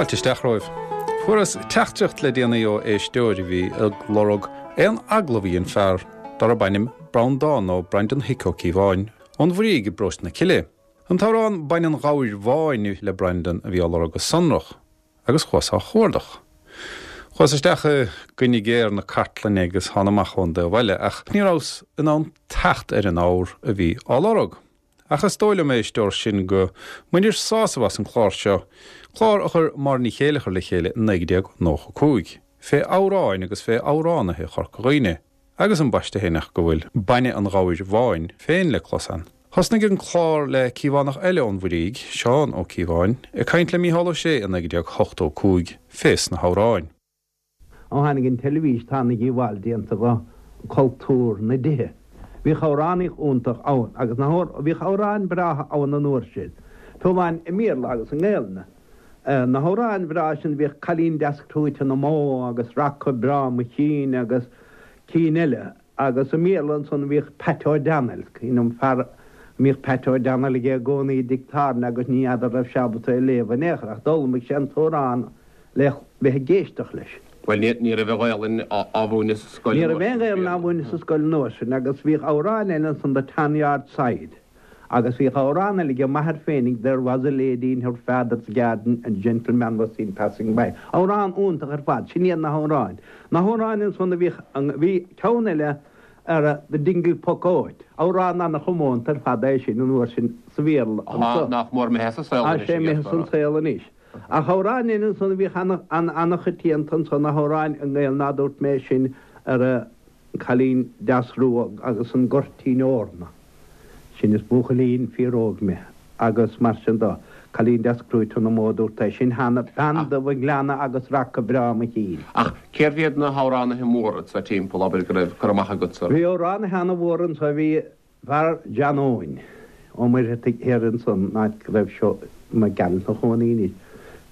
Fáilte isteach romhaibh. Fuaireas teachtaireacht le déanaí ó éisteoir a bhí ag lorg aon agallamh a dhein fear darb ainm Breandán nó Brendan Hick Ó Cíobháin ón Bhrígh i bparóiste na Cille. An t-amhrán Bainne an Ghabhair Bháin le Brendan a bhí á lorg go sonrach agus chuas á chuardach. Chuas isteach i gcoinne géar na cartlainne agus thána amach ón dtaobh eile ach ní rabhas in ann teacht ar an ábhar a bhí á lorg. Ach is dóigh liom, a éisteoir, sin go mbainir sásamh as an chlár seo, clár a chuir Máire Ní Chéileachair le chéile i 1995, fé amhráin agus fé amhránaithe Chorca Dhuibhne, agus ambaiste féin ach go bhfuil Bainne an Ghabhair Bháin féin le clos ann. Thosnaigh an clár le Cíobhánach eile ón Bhuirígh, Seán Ó Cíobháin, ag caint le Mícheál Ó Sé i 1985 fés na hamhráin. Ó tháinig an teilifís tá ana-dhíobháil déanta do chultúr na dtithe. Bhíodh amhránaíocht iontach ann agus na bhíodh amhráin breátha ann an uair sin, fiú amháin i mBéarla agus i nGaelainn. Na hamhráin bhreá sin bhíodh Cailín Deas Crúite na mBó agus Raca Breá Mo Chinn agus cinn eile. Agus i mBéarla ansan bhíodh Pat O'Donnell, cuimhin liom fear a mbíodh Pat O'Donnell aige i gcónaí i dtigh tábhairne agus ní fheadar raibh sé ábalta é a léamh in aon chor ach d'fhoghlaimigh sé an t-amhrán le bheith ag éisteacht leis. Bhuel, ní raibh an Ghaelainn á mhúineadh sa scoil Ní raibh aon Ghaelainn á mhúineadh sa scoil an uair sin agus bhíodh amhrán eile ansan The Tan Yard Side agus bhíodh amhrán eile age m'athair féinig There was a lady in her father's garden and a gentleman was seen passing by. Amhrán iontach ar fad, sin iad na hamhráin. Na hamhráin ansan a bhíodh, bhí ceann eile ar The Dingle Poc Óit, amhrán ana-chomónta ar fad é sin an uair sin sa Bhéarla anso. Nach mór imithe as an saol anois. Tá sé imithe as an saol anois. Ach amhráin eile ansan a bhíodh ana-choitianta ansan, na hamhráin i nGaelainn ná dúirt mé sin ar an Cailín Deas Rua agus an Goirtín Eorna. Sin is buachaillín fíor-óg mé agus mar sin do. Cailín deas crúite na mbó dúirt é sin cheana, bean dubh an ghleanna agus raca breá mo chinn. Ach cérbh iad na hamhránaithe móra anso timpeall, abair, go raibh cur amach agatsa orthu? Bhí amhránaithe ana-mhór anso, bhí fear John Eoin Ó Muircheartaigh thiar ansan, an áit go raibh seo Mac Gearailt 'na chónaí anois.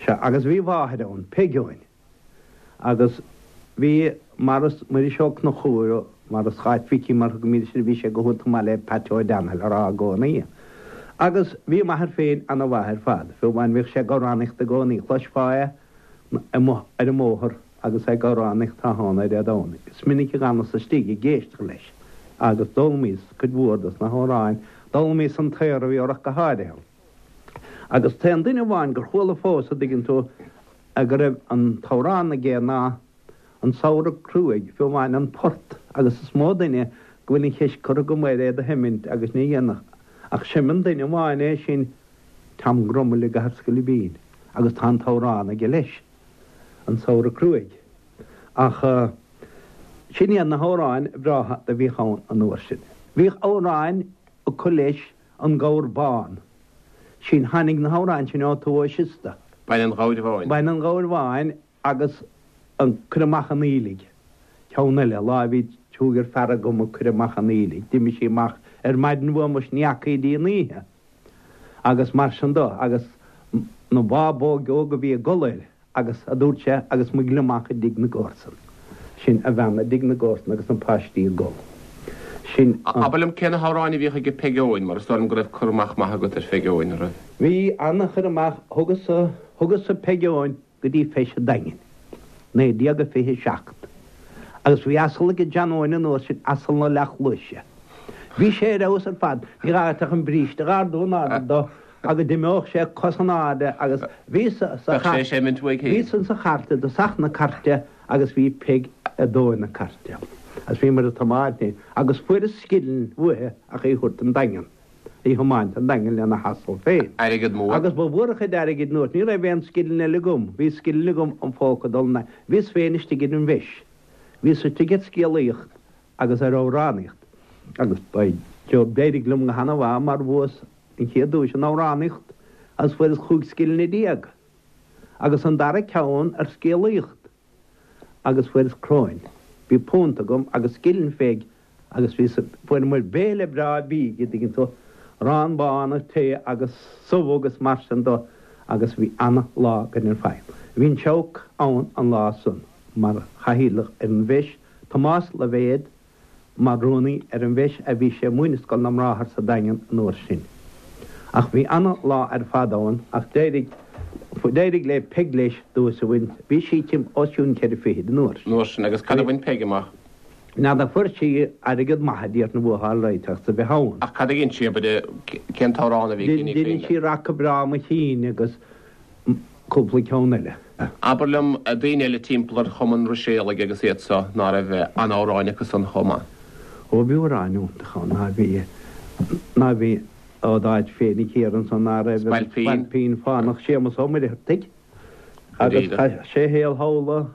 Sea, agus bhí a mháthair ann, Peig Eoin. Agus bhí Maurice, Muiris Ó Conchúir, Maurice Cháit Mhicí mar thugaimid air, bhí sé go hiontach maith le Pat O'Donnell a rá i gcónaí. Agus bhí m'athair féin ana-mhaith ar fad, fiú amháin bhíodh sé ag amhránaíocht i gcónaí, chloisfeá é amuigh ar an mbóthar agus é ag amhránaíocht tráthnóna Dé Domhnaigh. Is minic a d'fhanas istigh ag éisteacht leis agus d'fhoghlaimíos cuid mhór dos na hamhráin, d'fhoghlaimíos an tAoradh ach go háirithe. Agus t-aon duine amháin gur chuala fós, a dtuigeann tú, go raibh an t-amhrán aige ná An Samhradh Cruaidh, fiú amháin an port, agus is mó duine go bhfuil an cheist curtha agam air é do sheimint agus ní dhéanfadh, ach seimeann duine amháin é sin, Tom Grummell i gCathair Scoilbín, agus tá an t-amhrán aige leis, An Samhradh Cruaidh. Ach sin iad na hamhráin bhreátha do bhíodh ann an uair sin. Bhíodh amhráin acu leis An Gabhar Bán. Sin, tháinig na hamhráin sin ó Tuath Siosta. Bainne an Ghabhair Bháin. Bainne an Ghabhair Bháin agus an Cuir Amach an Aoiligh. Ceann eile, lá a bhí cúigear fear agam ag cur amach an aoiligh, d'imigh sí amach ar maidin uaim is ní fhaca í dtí an oíche. Agus mar sin do, agus na bábóg óg a bhí ag gol air. Agus, a dúirt sé, agus mo ghliomach i dtigh na gcomharsan. Sin a bhean i dtigh na gcomharsan agus na páistí ag gol. Sin an. Abair liom cé na hamhráin a bhíodh aige Peig Eoin, mar is dóigh liom go raibh cur amach maith agat ar Pheig Eoin, an raibh? Bhí an-chur amach, thugas-sa, thugas-sa Peig Eoin go dtí Feis an Daingin, 1927. Agus bhí asal aige John Eoin an uair sin, asal na leathchluaise. Bhí sé ar fheabhas ar fad, ní gá duit ach an bríste a dh'ardú in airde dó agus d'imeodh sé cos in airde agus bhí sa Bheadh sé ag seimint uaidh féin. Bhí san sa chairt i dtosach na cairte agus bhí Peig ag dóigh na cairte. Agus bhíomar ag tiomáint í agus fuaireas scilling uaithe ach í thabhairt don Daingean, í thiomáint don Daingean lena hasal féin. Airgead mór. Agus ba mhór a chuid airgid nuair ní raibh aon scilling eile agam. Bhí scilling agam im phóca dul na, bhíos féin istigh ar an bhfeis. Bhíos istigh ar scéalaíocht agus ar amhránaíocht agus by Jove d'éirigh liom go hana-mhaith mar bhuas an chéad duais in amhránaíocht agus fuaireas chúig scillinge déag agus an dara ceann ar scéalaíocht agus fuaireas cróin. Bhí punt agam agus scilling Pheig agus bhí fuaireamar béile breá bídh, a dtuigeann tú, arán bán agus tae agus subh agus mar sin do agus bhí ana-lá againn ar fad. Bhí an Seabhac ann an lá san mar chathaoirleach ar an bhfeis, Tomás Loibhéad, mar rúnaí ar an bhfeis a bhí sé ag múineadh Scoil na mBráthar sa Daingean an uair sin. Ach bhí ana lá ar fad ann ach d'éirigh. D'éirigh le Peig leis duais a bhaint. Bhí sí tim os cionn cheithre fichid an uair sin. An uair sin. Agus cad a bhain Peig amach? N'fheadar fuair sí airgead maith a déarfainn a bhuachtáil right as a bheith ann. Ach cad a dhein sí, abair, cén t-amhrán a bhí aici, ní cuimhin liom. Dhein sí Raca Breá Mo Chinn agus cúpla ceann eile. Abair liom, daoine eile timpeall ar Chumann Ruiséalaigh agus iad so, ná raibh an-amhráin acu san chomh maith? Ó bhí amhráin iontacha ann, ná bhí, ná bhí ó d'áit féinig thiar ansan ná raibh an Spailpín Fánach Séamus Ó Muircheartaigh agus chaith sé a shaol thall i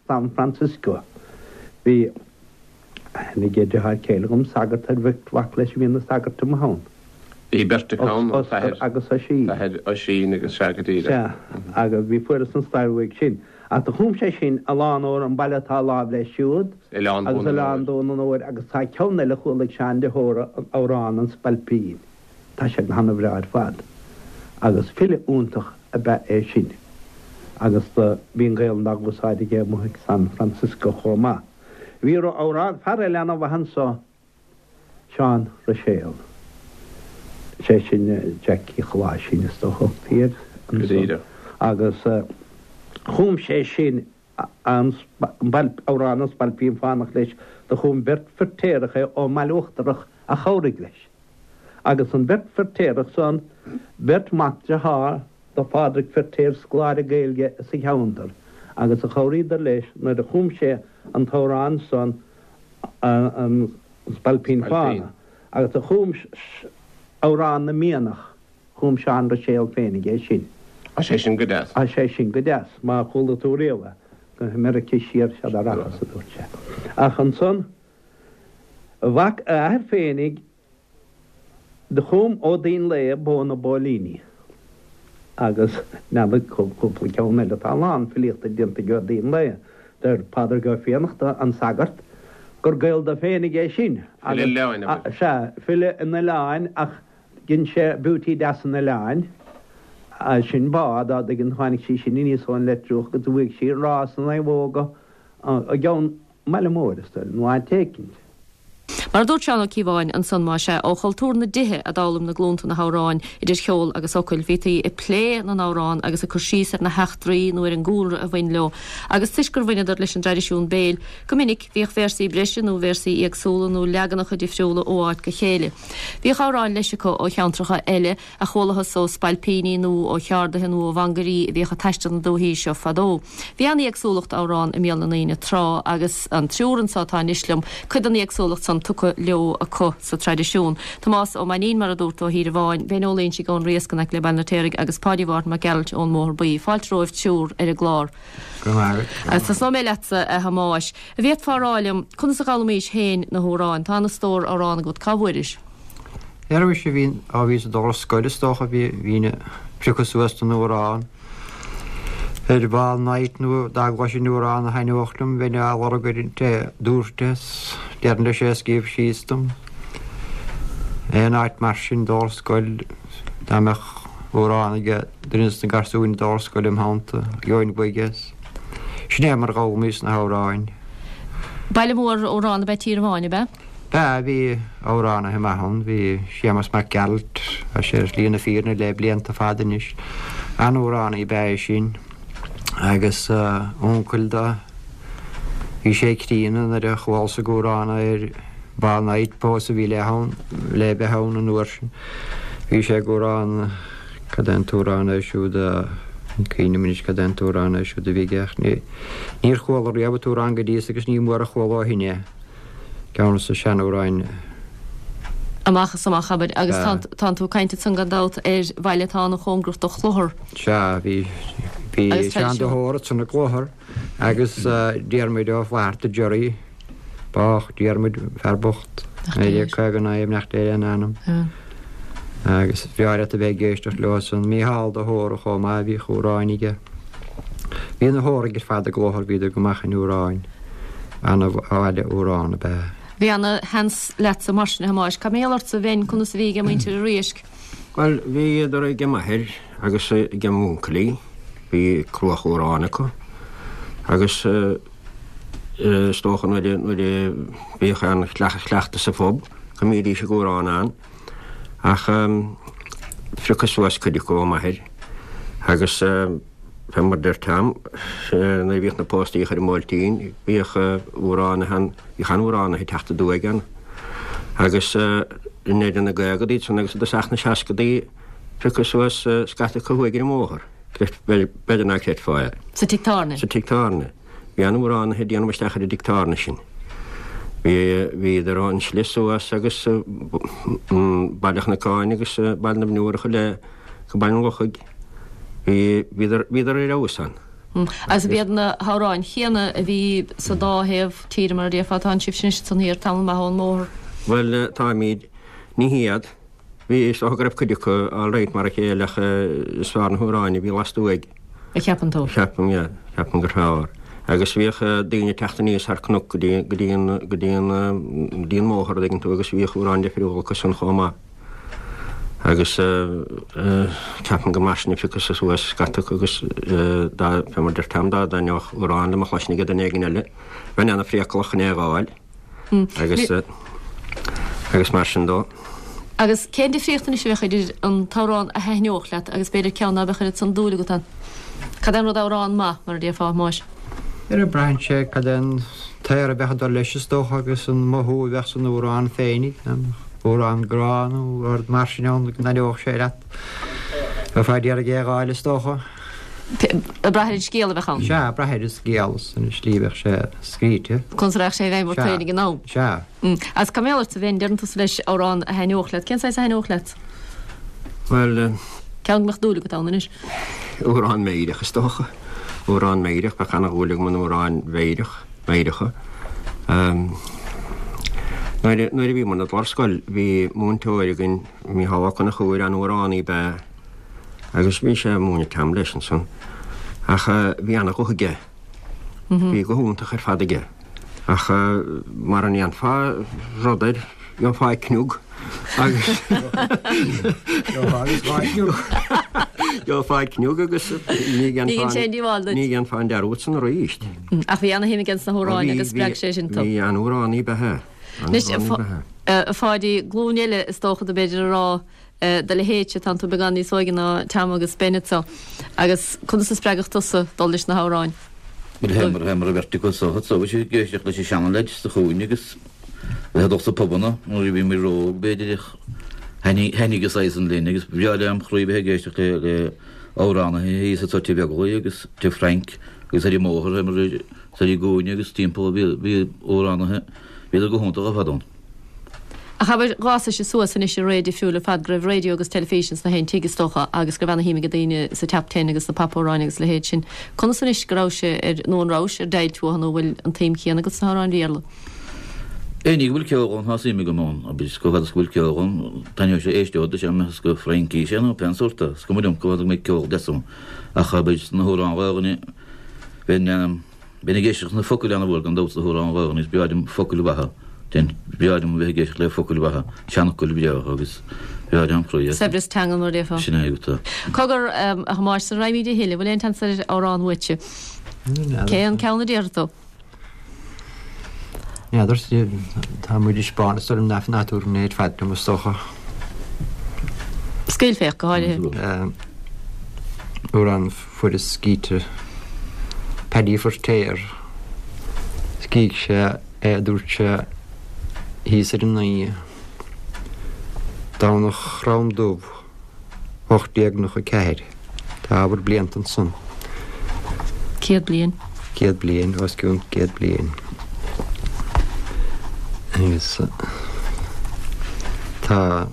San Francisco. Bhí aithne ag deartháir céile dhom, sagart ar bheirt mhac leis a bhí ina sagairt amuigh ann. Bhí beirt acu ann, an t-athair agus Oisín. T-athair Oisín agus sea go díreach. Sea, agus bhí fuaireas an stair uaidh sin. Ach do chum sé sin a lán amhrán, An Baile Atá Láimh Leis Siúd Oileán agus Oileán Dún an Óir agus tá ceann eile a chuala ag Seán de hÓra, an Amhrán an Spailpín. Tá sé go hana-bhreá ar fad. Agus file iontach ab ea é sin. Agus do bhí an Ghaelainn dá úsáid aige amuigh ag San Francisco chomh maith. Bhí amhrán, fear eile ana-mhaith anso, Seán Ruiséal. Sé sin Jackie Choláisín is dócha a thugtaí air anso. Agus chum sé sin an amhrán An Spailpín Fánach leis. Do chum beirt Firtéarach é ón mBaile Uachtarach a chabhraigh leis. Agus an bheirt Firtéarach san, beirt mhac dearthár do Phádraig Firtéar, scoláire Gaeilge sa cheantar, agus a chabhraíodar leis nuair a chum sé an t-amhrán san, An Spailpín Fánach, agus do chum Amhrán na Mianach, chum Seán Ruiséal féinig é sin. Tá sé sin go deas. Tá sé sin go deas, má chuala tú riamh é. Go hAmeirice siar sead a rachas, a dúirt sé. Ach ansan, mhac a athair féinig, Do chum Ó Duinnshléibhe Bó na bPóilíní agus n'fheadar cúpla ceann eile. Tá a lán filíochta déanta ag Ó Duinnshléibhe. Deir Pádraig Ó Fiannachta, an sagart, gur Gael dó féinig é sin. File oileáin, abair. Sea, file an oileáin ach dhein sé Beauty Deas an Oileáin. Sin bá, dá dtuigeann, tháinig sí sin aníos ón Leitriúch agus bhuaigh sí rás na naomhóga i gceann i mbaile mór, is dóigh, nó áit éicint. Mar a dúirt Seán Ó Cíobháin ansan, más ea, ó chultúr na dtithe a d'fhoghlaim na glúnta na hamhráin, idir cheol agus fhocail. Bhítí ag plé na n-amhrán agus ag cur síos ar na heachtraí nó ar an gcúlra a bhain leo, agus toisc gur bhaineadar leis an dtraidisiún béil, go minic bhíodh véarsaí breise nó véarsaí éagsúla nó leaganacha difriúla ó áit go chéile. Bhíodh amhráin leis acu ó cheantracha eile, a chualathas ó spailpíní nó ó cheardaithe nó ó mhangairí a bhíodh ag taisteal na dúichí seo fadó. Bhí an-éagsúlacht amhrán i mbéal na ndaoine tráth agus an triúr anso atá anois liom, cuid den éagsúlacht san tugtha leo acu sa traidisiún. Tomás Ó Mainnín, mar a dúrt, ó Thír an Bháin, Ben Ó Loingsigh ón Riasc in aice le Baile an Fheirtéaraigh agus Páidí Mhárthain Mac Gearailt ón mBóthar Buí. Fáilte romhaibh triúr ar an gclár. Go raibh maith agat. Tosnóidh mé leatsa, a Thomáis. An bhféadfá a rá liom conas a d'fhoghlaimís féin na hamhráin? Tá ana-stór amhrán agat. Cá bhfuairis? Ar mise bhí, á bhíos ag dul ar scoil is dócha, bhí, bhínn ag priocadh suas den amhrán ar ball night nó dá gcloisinn amhrán a thaitneodh liom bheinn á lorg ar an té a dúirt é 's déarfainn leis é a scríobh síos dom. Aon áit mar sin dul ar scoil dá mbeadh amhrán ag duine de na garsúin ag dul ar scoil im theannta, gheobhainn uaidh é. Sin é mar a d'fhoghlaimíos na hamhráin. Baile mór amhrán ab ea Tír an Bháin, ab ea? B'ea, bhí amhránaithe maith ann. Bhí Séamus Mac Gearailt, tá sé ar shlí na fírinne le blianta fada anois. An-amhránaí ab ea é sin. Agus uncail do, bhí sé críonna nuair a chualas ag amhrán ar Ball Night, pósadh a bhí le ann, le bheith ann an uair sin. Bhí sé ag amhrán, cad é an t-amhrán é siúd a, ní cuimhin liom anois cad é an t-amhrán é siúd a bhí aige ach ní, níor chuala riamh an t-amhrán go dtí agus ní mór a chuala ó shin é. Ceann de na seanamhráin. Amach is amach, abair. Agus tánn tú ag caint ansan gan dabht ar bhaile atá an-chóngarach do Chlochar. Sea, bhí, bhí Seán de hÓra ansan i gClochar agus Diarmuid Ó Flatharta Jerry, bádh Diarmuid, fear bocht, 1959 nach léir an ainm. Agus bhreá leat a bheith ag éisteacht leo san. Mícheál de hÓra chomh maith, bhíodh amhráin aige. Bhí na hÓraigh ar fad i gClochar, bhíodar go maith in amhráin. Ana-bhaile amhrán ab ea. Bhí ana-sheans leatsa mar sin, a Thomáis. Cad mar gheall ortsa, a Bhein, conas a bhí ag muintir an Riaisc? Bhuel, bhíodar ag m'athair agus ag m'uncailí, bhí cruach amhrán acu agus is dócha nuair a bhíodh aon chleachtadh sa phub go mbídís ag amhrán ann. Ach phriocas suas cuid acu ó m'athair. Agus fé mar deir Tom, nuair a bhíodh na póstaí a chur i mBuailtín, bhíodh amhránaithe ann, bhíodh an-amhránaithe ag teacht aduaidh ann. Agus i ndeireadh na gcaogadaí ansan agus i dtosach na seascadaí, piocadh suas scata acu thuaidh ar an mbóthar. B'fhéidir ná creidfeá é. Sa tigh tábhairne. Sa tigh tábhairne. Bhí an-amhránaithe ag déanamh isteach ar an dtigh tábhairne sin. Bhí, bhíodar ón slí suas agus Baile Chnocáin agus Baile na bhFionnúrach i leith go Baile an Lochaigh. Bhí, bhíodar, bhíodar ar fheabhas ann. Agus ab iad na hamhráin chéanna a bhí sa dá thaobh tíre mar a déarfá, tánn sibhse anois ansan thiar tamall maith ón mbóthar. Bhuel, táimid, ní hiad. Bhí, is dócha go raibh cuid acu all right mar a chéile ach is fearr na hamhráin a bhí lastuaidh. A cheapann tú? Ceapaim, yeah. Ceapaim gur fearr. Agus bhíodh daoine ag teacht aníos thar cnoc go dtí, go dtí an, go dtí an, go dtí an mbóthar, an dtuigeann tú, agus bhíodh amhráin difriúla acu san chomh maith. Agus ceapaim gur mar sin a piocadh suas scata acu agus dá, fé mar deir Tom, dá dtaitneodh amhrán liom a chloisint ag duine éigin eile, bheinn ana-phriacalach chun é a dh'fháil. Agus agus mar sin dó. Agus cén difríocht anois a bheadh idir an t-amhrán a thaitneodh leat agus b'fhéidir ceann ná beadh oiread san dúil agat ann? Cad é an rud amhrán maith, mar a déarfá, a Thomáis? Ar braitheann sé cad é an t-aer a bheadh ag dul leis is dócha agus an mothú a bheadh san amhrán féinig, amhrán grá nó rud mar sin ann go dtaitneodh sé leat. Bheifeá d'iarraidh é a dh'fháil is dócha. Ag brath ar an scéal a bheadh ann. Sea, ag brath ar an scéal is an slí a bheadh sé scríte. Conas a rachadh sé i bhfeidhm ort féin ag an am. Sea. Agus cá mbeadh ort a bheinn, deireann tusa leis amhrán a thaitneodh leat. Cén saghas a thaitneodh leat? Bhuel. Ceann go mbeadh dúil agat ann anois. Amhrán meidhreach is dócha. Amhrán meidhreach, bheadh ana-dhúil agam in amhráin mheidhreach, meidhreacha. Nuair a bhíomar ag dul ar scoil bhí múinteoir againn, Mícheál Ó Conchúir, an-amhránaí ab ea é. Agus bhí sé ag múineadh Tom leis ansan. Ach bhí ana-ghuth aige. Bhí guth iontach ar fad aige. Ach mara ndéanfá rud air, gheofá cniog. Agus gheofá cniog agus ní dhéanfá an dearúd san arís. Ach bhí ana-shuim aige sna hamhráin agus spreag sé sin tú. Bhí an-amhránaí ab ea é. Anois, a Pháidí, glúin eile is dócha do b'fhéidir a rá do leithéidse, tánn tú beagán níos óige ná Tom agus Ben anso, agus conas a spreagadh tusa dul leis na hamhráin? Bhuel, théamar, théamar an bheirt acu so, so bhí siad ag éisteacht leis an seana-leaids sa chúinne agus bheith ag dul sna pubanna nuair a bhí muid ró-óg b'fhéidir ach thaitnigh, thaitnigh an saghas san linn agus ba bhreá lem chroí bheith ag éisteacht le, le amhránaithe thíos anso Tigh Bheaglaoich agus Tigh Frank agus ar an mbóthar, théamar ar an gcúinne agus timpeall bhí, bhí amhránaithe, bhíodar go hiontach ar fad ann. Ach abair, dh'fhásaise suas anois i ré difriúil ar fad, go raibh raidió agus teilifís ins na haon tigh, is dócha, agus go raibh ana-shuim ag daoine sa Top Ten agus sna pop-amhráin agus a leithéid sin. Conas anois go rabhais ar, nó an rabhais, ar deighilt uathu nó bhfuil an tsuim chéanna agat sna hamhráin Bhéarla? Aon ní go bhfuil ceol ann, tá suim agam ann, abair, chomh fada is go bhfuil ceol ann, taitneoidh sé, éisteod leis, más go Fraincís é nó pén sórt é, is cuma liom chomh fada go mbeidh ceol deas ann. Ach abair, sna hamhráin Ghaelainne, bheinn, Bheinn ag éisteacht leis na focail ana-mhór gan dabht sna hamhráin Ghaelainne is breá liom focail mhaithe. Bheinn, breá liom a bheith ag éisteacht le focail mhaithe, seanfhocail bhreátha agus breá lem chroí é. Saibhreas teangan mar a déarfá. Sin é agat é. Cogar, a Thomáis, sara raghaimid a thuilleadh, bhfuil aon tseans ar amhrán uaitse? Cén ceann a déarfaidh tú? N'fheadar, tá muid ag spáint is orm nach nádúr an ar fad liom is dócha. Scaoilféach, go háirithe. Amhrán fuaireas scíte Paddy Feirtéar. Scrígh sé é a dúirt sé thíos ar an Naoi, Domhnach Chrom Dubh, 1894. Tá ábhar blianta ansan. 100 bliain. 100 bliain, os cionn 100 bliain. Agus tá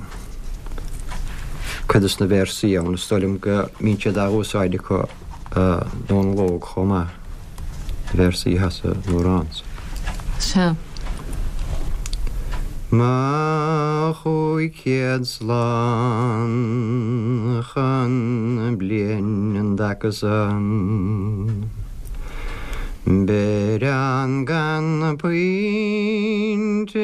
cuid de na véarsaí ann, is dóigh liom go mbíonn siad á úsáid acu i nDomhnall Óg chomh maith, na véarsaí atá san amhrán so. Sea. Mo 500 slán chun bliain an dtaca san. Beir ann gan puinte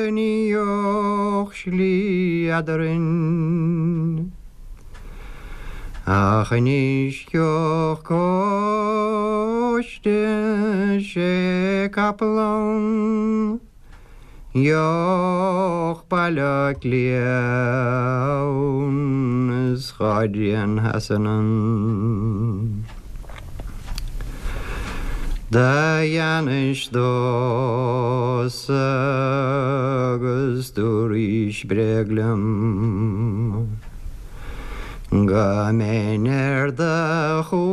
ní gheobhadh slí eadrainn. Ach anois gheobhadh cóiste sé capall ann. Gheobhadh Baile Átha Cliath ann. Is dhá dtrian theas anonn. Do dheanais domhsa agus dúraís bréag liom Go mbeinn ar do chúlaibh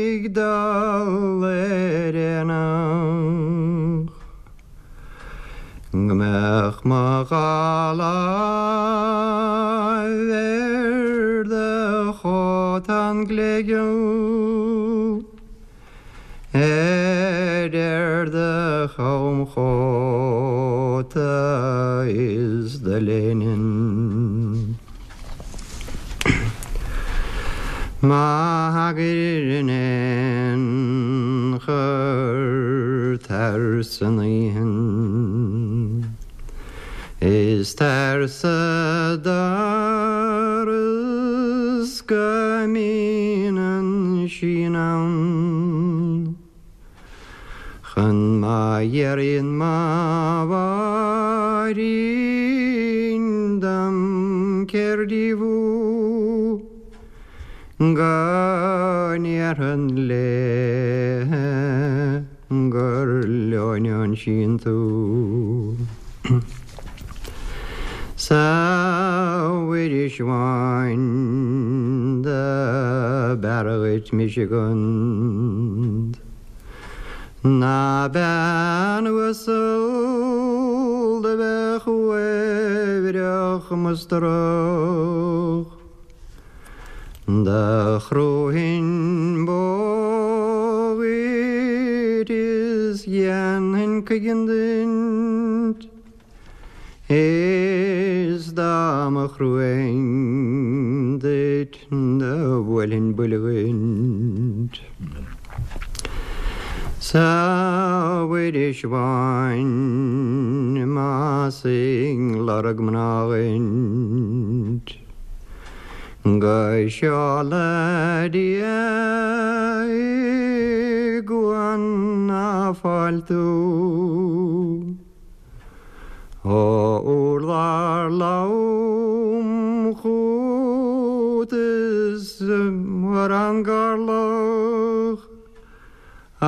ag dul ar aonach. Go mbeadh mo dhá láimh ar do chótán gléigeal, ar ar do chamchóta is do léine. Má thagair in aon chor tar san oíche is tar sa doras go mbíonn an síon ann. Chun má iarraidh mo mháithrín dom céard í thú go ndéarfainn léithe gur leoin ón síon tú. 'S a Mhuiris bháin do b'fhearr dhuit mise gund ná bean uasal do bheadh uaibhreach mustrach. Do chrúfainn bó dhuit is dhéanfainn cuigeann duit. Is dá mba chrúfainn duit do bhuailfinn buille dhuit. 'S a Mhuiris bháin más ag lorg mná dhuit go seola Dia i gCuan na Fáil tú. Ó urlár lom chút is ar an gcorrlach a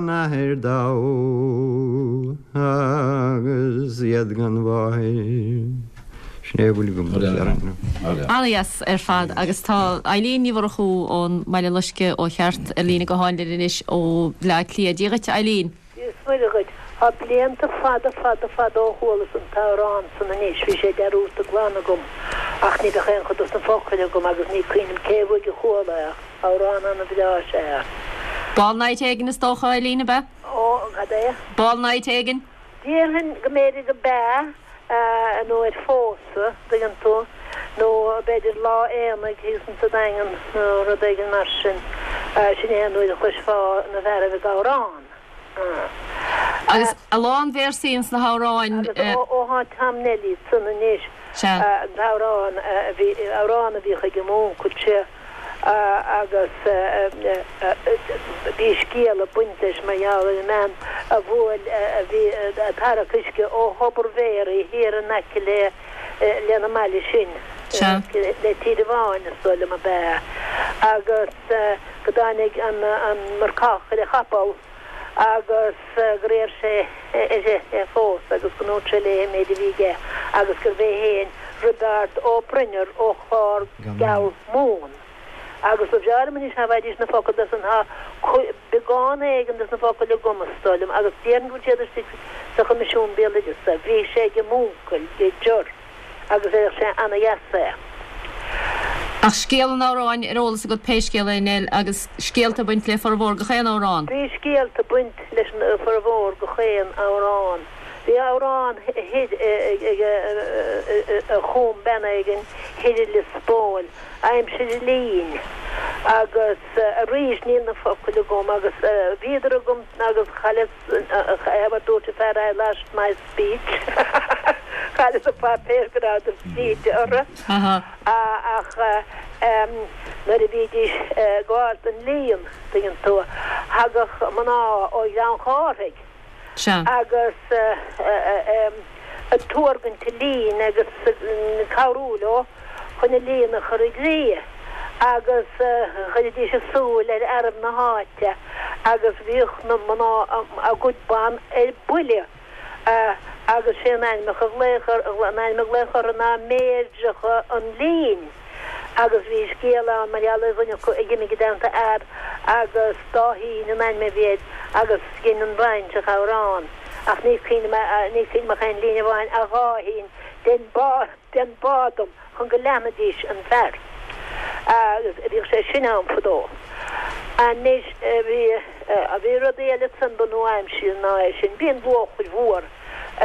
n-athair dhamh agus iad gan mháthair. Sin é a bhfuil agam le rá. Ana-dheas ar fad agus tá Eileen Ní Mhurchú ón mBaile Loiscthe ó cheart ar líne gutháin linn anois ó Bhleá Cliath. Dia dhuit a Eileen. Dia is Muire dhuit. Tá blianta fada fada fada ó chualas an t-amhrán san anois, bhí sé dearúdta glan agam, ach ní bheadh aon chuid dos na focail agam agus ní cuimhin liom cé uaidh a chuala é ach amhrán ana bhreá is ea é. Ball night éigin is dócha, Eileen, ab ea? Ó, cad é? Ball night éigin? Déarfainn go mb'fhéidir go b'ea, nó ar phósadh, dtuigeann tú, nó b'fhéidir lá aonaigh thíos insa Daingean nó rud éigin mar sin. Sin é an uair a chloisfeá na fearaibh ag amhrán. Agus a lán véarsaí ins na hamhráin. Agus ó thá Tom Neilí san anois, an t-amhrán a bhí, amhrán a bhíodh ag m'úncail, sé, agus bhí scéal ag baint leis mar gheall ar an mbean a bhuail, a bhí ag tarrac uisce ó Thobar Mhéaraí thiar in aice le, lena mbaile sin, le Tír an Bháin is dóigh liom ab ea, agus go dtáinig an marcach ar a chapall agus gur iarr sé uirthi é a phósadh agus go ndúirt sé léi an méid a bhí aige agus gurbh é féin Roibeárd Ó Broinnear ó Chlár Geal Mumhan. Agus ba bhreá liom anois dá bhfaighidís na focail de san, tá beagán éigin de na focail agam is dóigh liom agus déarfainn go bhfuil siad istigh sa Choimisiún Béaloideasa. Bhí sé ag m'úncail, Ger, agus deireadh sé ana-dheas é. Ach scéal an amhráin ar eolas agat pé scéal é, Nell, agus scéalta ag baint le formhór gach aon amhrán. Bhí scéalta ag baint leis an formhór gach aon amhrán. Bhí amhrán thoir ag a chum bean éigin thoir i Lios Póil, aimsir an lín, agus arís níl na focail agam agus bhíodar agam agus chailleas, mar dúirt an fear I lost my speech, chailleas an páipéar go rabhadar scríte orthu. Ach nuair a bhídís ag gabháil don líon, tuigeann tú, thagadh mná ó Ghleann Chárthaigh. Sea. Agus Ag tuargaint an lín agus ag cabhrú leo chun an líon a chur i gcrích agus chuiridís a súil ar fhearaibh na háite agus bhíodh na mná a gcuid ban ar buile agus sé an ainm a ghlaodh an ainm a glaodh orthu ná Meirdreacha an Lín agus bhí scéal ann mar gheall ar dhuine acu a dh'imigh i dteannta fhear agus Dáithín an ainm a bhí air agus dhein an bhaintreach amhrán ach ní cuimhin liom ní cuimhin liom ach aon líne amháin a Dháithín dein bá dein bá dom chun go leanfaidís an fear agus bhíodh sé sin ann fadó. Anois bhí bhí rudaí eile ansan ba nua-aimseartha ná é sin. Bhí an luachair mhór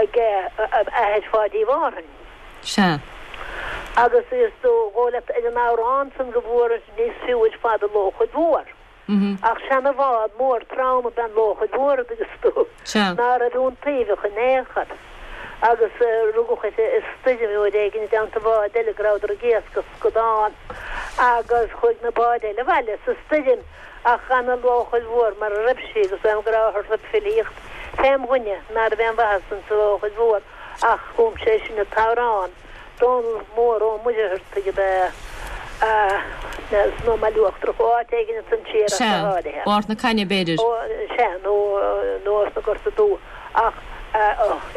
ag athair Pháidí Mhárthain. Sea. Agus is dóigh leat ar an amhrán san go bhfuaras níos fiú ar fad an luachair mhór. Ach seana-bhád mór trom ab ea an luachair mhór a dtuigeas tú, ná raibh iontaobhach in aon chor. Agus rugadh uirthi i stoirm uair éigin i dteannta bhád eile go rabhadar ag iascach scadán agus chuaigh na báid eile abhaile sa stoirm ach d'fhan an luachair mhór mar a raibh sí agus uaim go rabhthar ag filíocht fém dhuine ná raibh aon mhaitheas insa luachair mhór ach chum sé sin an t-amhrán. Dónall Mór Ó Muircheartaigh ab ea é, as an mBaile Uachtarach, ó áit éigin ansan siar ach go Sea, háirithe. ó Ard na Caithne b'fhéidir. Ó, sea, nó, nó as na Gorta Dubha. Ach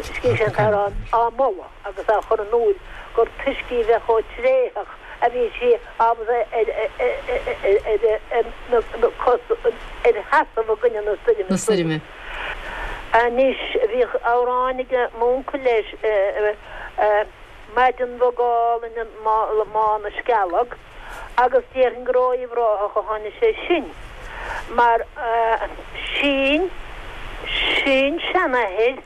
scríobh sé an t-amhrán á moladh agus á chur in iúl gur toisc í bheith chomh tréitheach a bhí sí ábalta ar, ar, ar na cosa, ar sheasamh i gcoinne na stoirme. Na stoirme. Anois, bhíodh amhráin ag m'uncail leis, Maidin bhog álainn i mBá na Scealg, agus déarfainn gur ó Uíbh Ráthach a tháinig sé sin, mar sin, sin-seanathair,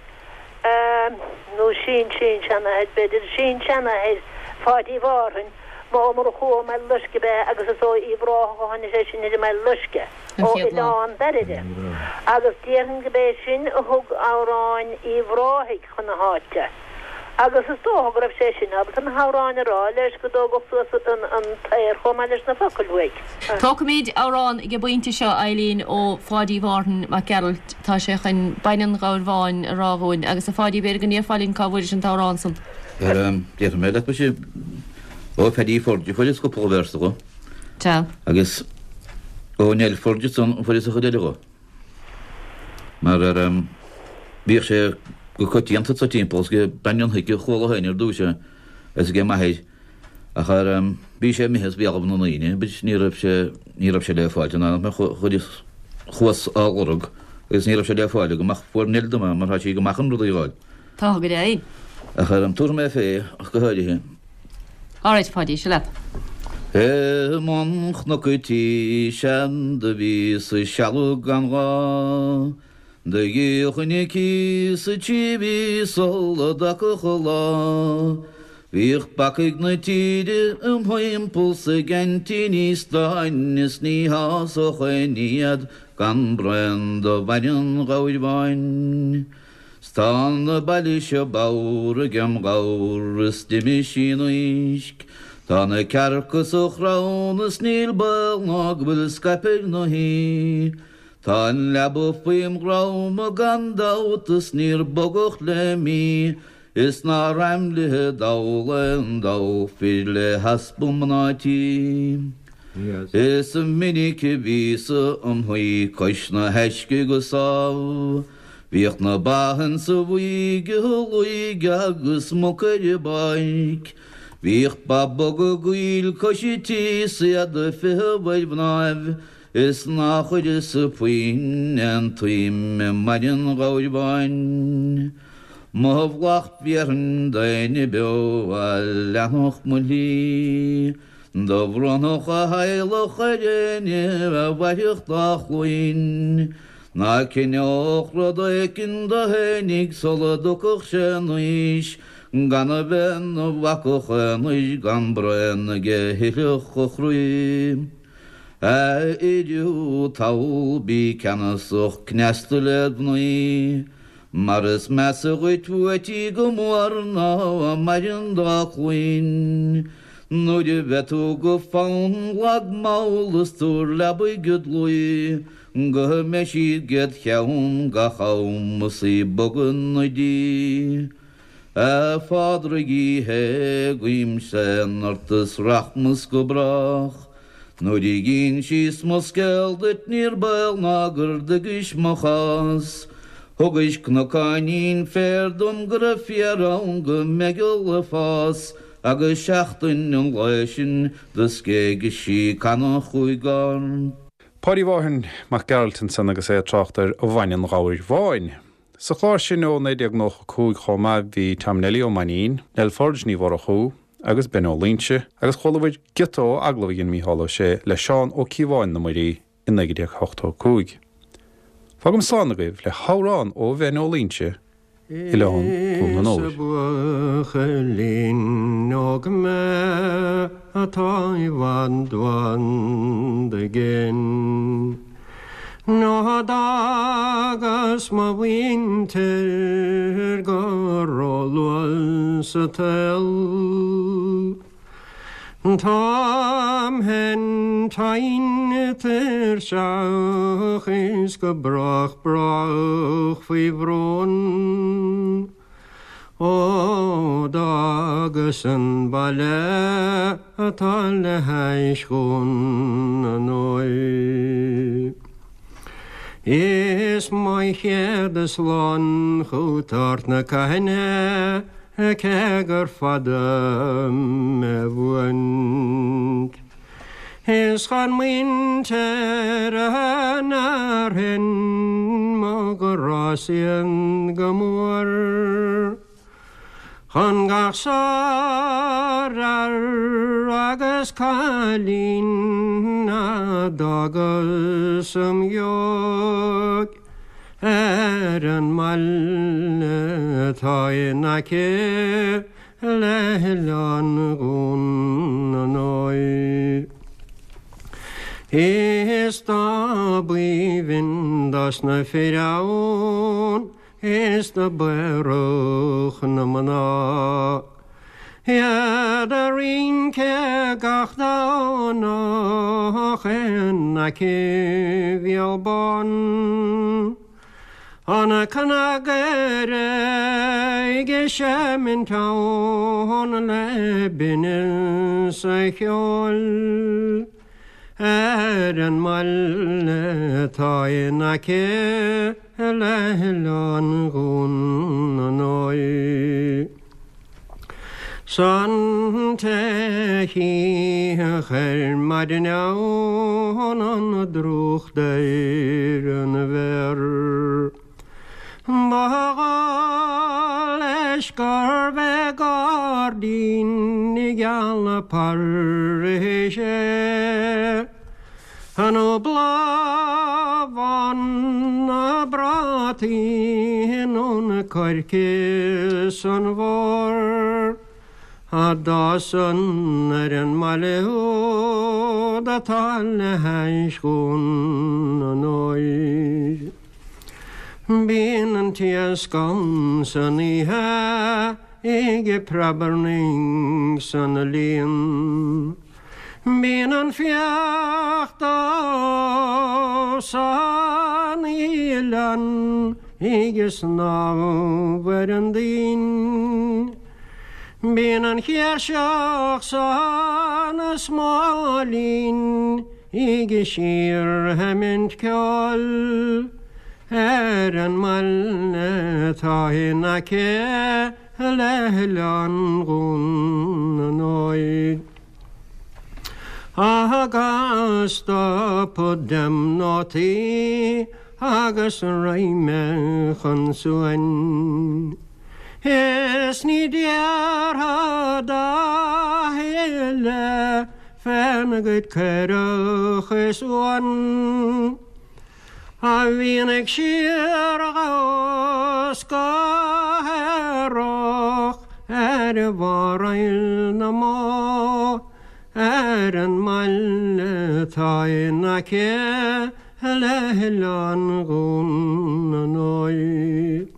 nó sin-sin-seanathair, b'fhéidir, sin-seanathair Pháidí Mhárthain, Ó Murchú ó mBaile Loiscthe ab ea agus is ó Uíbh Ráthach a tháinig sé sin ar an mBaile Loiscthe, ó Oileán Dairire, agus déarfainn go b'é sin a thug amhráin Uíbh Ráthaigh chun na háite. Agus is dócha go raibh sé sin ábalta na hamhráin a rá leis go dtógfadh suas an t-aer chomh maith leis na focail uaidh. Tógfaimid amhrán ag an bpointe seo, Eileen, ó Pháidí Mhárthain Mac Gearailt. Tá sé chun Baineann an Ghabhair Bháin a rá dhúinn. Agus a Pháidí, b'fhéidir go ndéarfá linn cá bhfuairis an t-amhrán san. Déarfaidh mé leat, muise, ó Phaddy Forde a fuaireas cúpla véarsa dho. Sea. Agus ó Nell Forde ansan a fuaireas an chuid eile dho. Mar bhíodh sé go coitianta sa timpeall is ag Bean Fhionn Hic a chuala féin ar dtús é is ag m'athair ach bhí sé imithe as béalaibh na ndaoine but ní raibh sé ní raibh sé le fáilt in aon chuireas chuas á lorg agus ní raibh sé le fáil agam ach fuair Nell dom é mar tá sí go maith chun rudaí a fháil. Tá go deimhin. Ach tabharfaidh mé fé ach go háirithe. Alright, Pháidí, seo leat. I mbun chnoc an tí sean do bhíos ag sealbhadh gan ghá Do dhíolfainn an cíos sa trí mhí sula dtagfadh an lá Bhíodh bacaigh na tíre im thimpeall 's ag aintíní stáin Is ní shásódh éinne iad gan braon de bhainne an ghabhair bháin. 'S tá na baile seo bodhar agem ghabhar is d'imigh sí in uisce. Tá na cearca sa chrann is níl baol ná go bhfuil scaipthe ar na haoi. Tá an leaba faoim dhrom gan dabht is níor bogadh le mí is nár aimlithe dall aon dall fir le heaspa mná tí. Is minic a bhíos-sa im shuí cois na haisce go sámh. Bhíodh na ba insa bhuaidh ag luigh agus muca ar an bpáirc. Bhíodh ba boga gaill cois an tí 's iad ag feitheamh ar mhnáibh is ná chuireas-sa puinn aon tsuim i mbainne an ghabhair bháin. Mo mhallacht bhéarfainn d'éinne beo a leanfadh mo shlí. Do bhronnfadh a theaghlach ar éinne a mhairfeadh dá chluain. Ná cinneodh rud éicint dó fhéinig sula dtiocfadh sé in aois, gan a bheith 'na bhacach aonair gan braon aige a thitfeadh a chroí. A fhir thall bí ceannasach cneasta led mhnaoi, mar is measa dhuit uait í go mór ná a maireann dá cluain. Nuair a bheidh tú go fann lag mall is tabhair leabaidh id luí, Go mbeidh siad 'ged cheann gach am is í ag bogadh 'na diaidh. A Phádraig Uí Shé, guímse ort is rachmas go brách. Nuair a dh'ínsíos mo scéal duit níor baol ná gur dtuigis mo chás. Thugais cnocáinín féir dom go raibh féar ann go meigeall ag fás agus seachtain an lae sin do scéigis sí canna chúig gcorn. Páidí Mhárthain Mac Gearailt ansan agus é ag trácht ar bhainne an Ghabhair Bháin. Sa chlár sin ó 1995 chomh maith bhí Tom Neilí Ó Mainnín, Nell Forde Ní Mhurchú agus Ben Ó Loingsigh agus chualabhair giota ó agallamh a dhein Mícheál Ó Sé le Seán Ó Cíobháin na Muirí i 1985. Fágaim slán agaibh le hamhrán ó Bhen Ó Loingsigh, Oileán Dhún na nÓir. Is buachaillín óg mé atá i bhfad bhfad i gcéin. Nó d'fhágas mo mhuintir go róluath sa tsaol. Táim féin tinn tuirseach is go brách brách faoi bhrón. Ó d'fhágas an baile atá le hais Dhún na nÓir. Is mo chéad slán chút Ard na Caithne cé gur fada mé bhuaint. Is chan muintir an fhearthainn mo ghrá-sa iad go mór. Chun gach sárfhear agus cailín a d'fhágas im dheoidh ar an mbaile atá in aice le hOileán Dhún na nÓir. Is dá b'aoibhinn dos na fir ann Is do b'aerach na mná. Iad a' rince gach Domhnach in aice Bhéal Bán. An cnagaire ag seimint ann le binneas a cheoil. Ar an mbaile atá in aice le hOileán Dhún na nÓir. 'S an té chífeadh ar maidin ann an drúcht ar an bhféar. Ba dhóigh leis gurbh é gairdín geal Paris é. Nó bláthbhán na bprátaí nó na coirce san bhfómhar a d'fhásann ar an mbaile úd atá le hais Dhún na nÓir. Bíonn an t-iasc ann san oíche ag preabarnaigh san líon. Bíonn an fiach dubh san oileán ag snámh ar an dtoinn. Bíonn an chéirseach san smóilín ag síorsheimint ceoil ar an mbaile atá in aice le hOileán Dhún na nÓir. Agus stopfad dem nótaí agus raghaidh mé chun suain. Is ní déarfad a thuilleadh féna gcuid caorach is uan. A bhíonn ag síordhamhsa go haerach ar bharr Aill na mBó, ar an mbaile atá in aice le hOileán Dhún na nÓir.